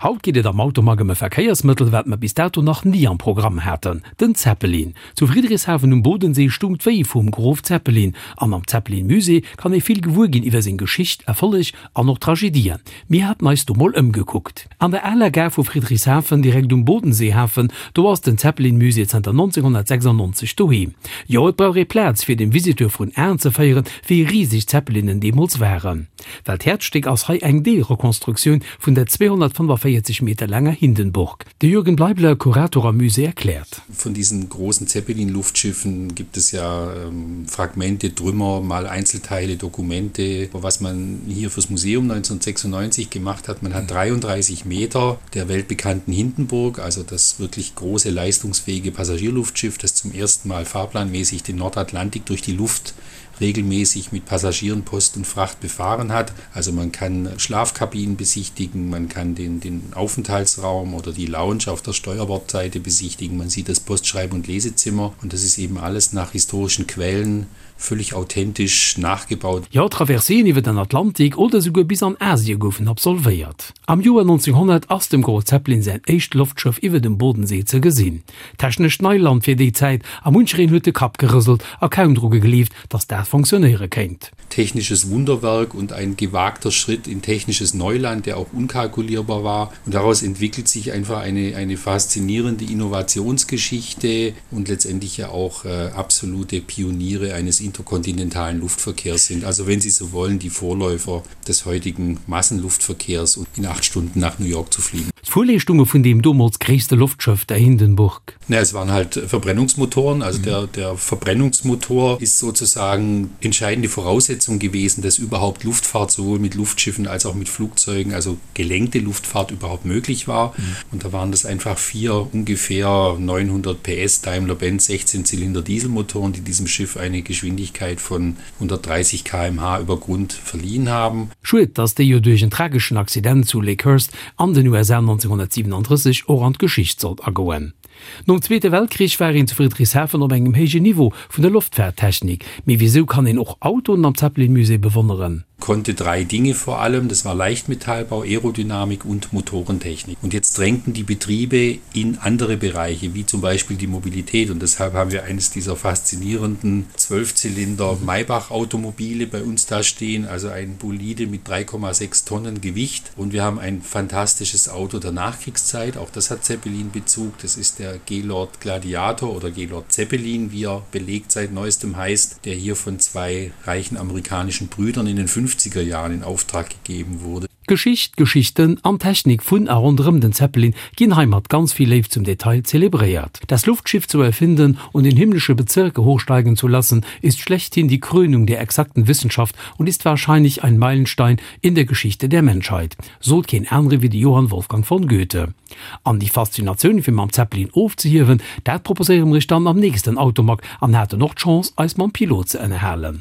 Haut geet et am Automag ëm e Verkéiersmëttel, wat mer bis dato nach ni am Programm haten, den Zeppelin. Zu Friedrichshafen um Bodensee stung d'Wéi vum Grof Zeppelin an am Zeppelin-Musée kann ee vill gewuer ginn iwwer seng Geschicht, Erfolleg an och Tragedien. Mir haten eis do mol ëmgekuckt. An der aler Gare vu Friedrichshafen, direkt um Bodenseehafen, do ass den Zeppelin-Musée zanter 1996 doheem. Jo, et brauch ee Plaz, fir dem Visiteur vrun Aen ze féieren, wéi riseg d'Zeppelinen deemools waren. Well d'Häerzstéck ass hei eng Deelrekonstruktioun vun der 245 Meter laanger Hindenburg. De Jürgen Bleibler, Kurator am Musée, erkläert. Von diesen großen Zeppelin-Luftschiffen gibt es ja Fragmente, Trümmer, mal Einzelteile, Dokumente. Was man hier fürs Museum 1996 gemacht hat, man hat 33 Meter der weltbekannten Hindenburg, also das wirklich große leistungsfähige Passagierluftschiff, das zum ersten Mal fahrplanmäßig den Nordatlantik durch die Luft regelmäßig mit Passagieren, Post und Fracht befahren hat. Also man kann Schlafkabinen besichtigen, man kann den, den Aufenthaltsraum oder die Lounge auf der Steuerbordseite besichtigen, man sieht das Postschreib- und Lesezimmer und das ist eben alles nach historischen Quellen völlig authentisch nachgebaut. Jo, Traverseen iwwer den Atlantik oder souguer bis an Asie goufen absolvéiert. Am Joer 1900 ass dem Grof Zeppelin säin éischt Loftschëff iwwer dem Bodensee ze gesinn. Technescht Neiland fir déi Zäit a munchereen huet de Kapp gerëselt a kaum dru gegleeft, datt dat fonctionnéiere kéint. Technisches Wunderwerk und ein gewagter Schritt in technisches Neuland, der auch unkalkulierbar war. Und daraus entwickelt sich einfach eine, eine faszinierende Innovationsgeschichte und letztendlich ja auch äh, absolute Pioniere eines interkontinentalen Luftverkehrs sind. Also wenn Sie so wollen, die Vorläufer des heutigen Massenluftverkehrs und in acht Stunden nach New York zu fliegen. D'Fuerleeschtunge vun deem domols gréisste Loftschëff, der Hindenburg. Na, es waren halt Verbrennungsmotoren. Also der, der Verbrennungsmotor ist sozusagen entscheidende Voraussetzung gewesen, dass überhaupt Luftfahrt sowohl mit Luftschiffen als auch mit Flugzeugen, also gelenkte Luftfahrt überhaupt möglich war. Mhm. Und da waren das einfach vier ungefähr 900 PS Daimler-Benz 16 Zylinder Dieselmotoren, die diesem Schiff eine Geschwindigkeit von 130 km/h über Grund verliehen haben. Schued, dass déi jo duerch en trageschen Accident zu Lakehurst an den USA 1937 och an d'Geschicht sollt agoen. Nom Zweete Weltkrich war een zu Friedrichshafen op engem héijen Niveau vun der Loftfaarttechnik. Mee wisou kann een och Autoen am Zeppelin-Musée bewonneren? Konnte drei Dinge vor allem, das war Leichtmetallbau, Aerodynamik und Motorentechnik. Und jetzt drängten die Betriebe in andere Bereiche, wie zum Beispiel die Mobilität. Und deshalb haben wir eines dieser faszinierenden Zwölfzylinder Maybach-Automobile bei uns da stehen, also ein Bolide mit 3,6 Tonnen Gewicht. Und wir haben ein fantastisches Auto der Nachkriegszeit, auch das hat Zeppelin-Bezug. Das ist der Gaylord Gladiator oder Gaylord Zeppelin, wie er belegt seit neuestem heißt, der hier von zwei reichen amerikanischen Brüdern in den 50er Jahren in Auftrag gegeben wurde. Geschicht, Geschichten an Technik vun a ronderëm den Zeppelin ginn hei mat ganz vill Léift zum Detail zelebréiert. Das Luftschiff zu erfinden und in himmlische Bezirke hochsteigen zu lassen, ist schlechthin die Krönung der exakten Wissenschaft und ist wahrscheinlich ein Meilenstein in der Geschichte der Menschheit, sot keen anere wéi de Johann Wolfgang von Goethe. An déi Faszinatioun fir mam Zeppelin ofzehiewen, dat proposéiere mer iech dann am nächsten Automag an haten och d'Chance eis mam Pilot ze ënnerhalen.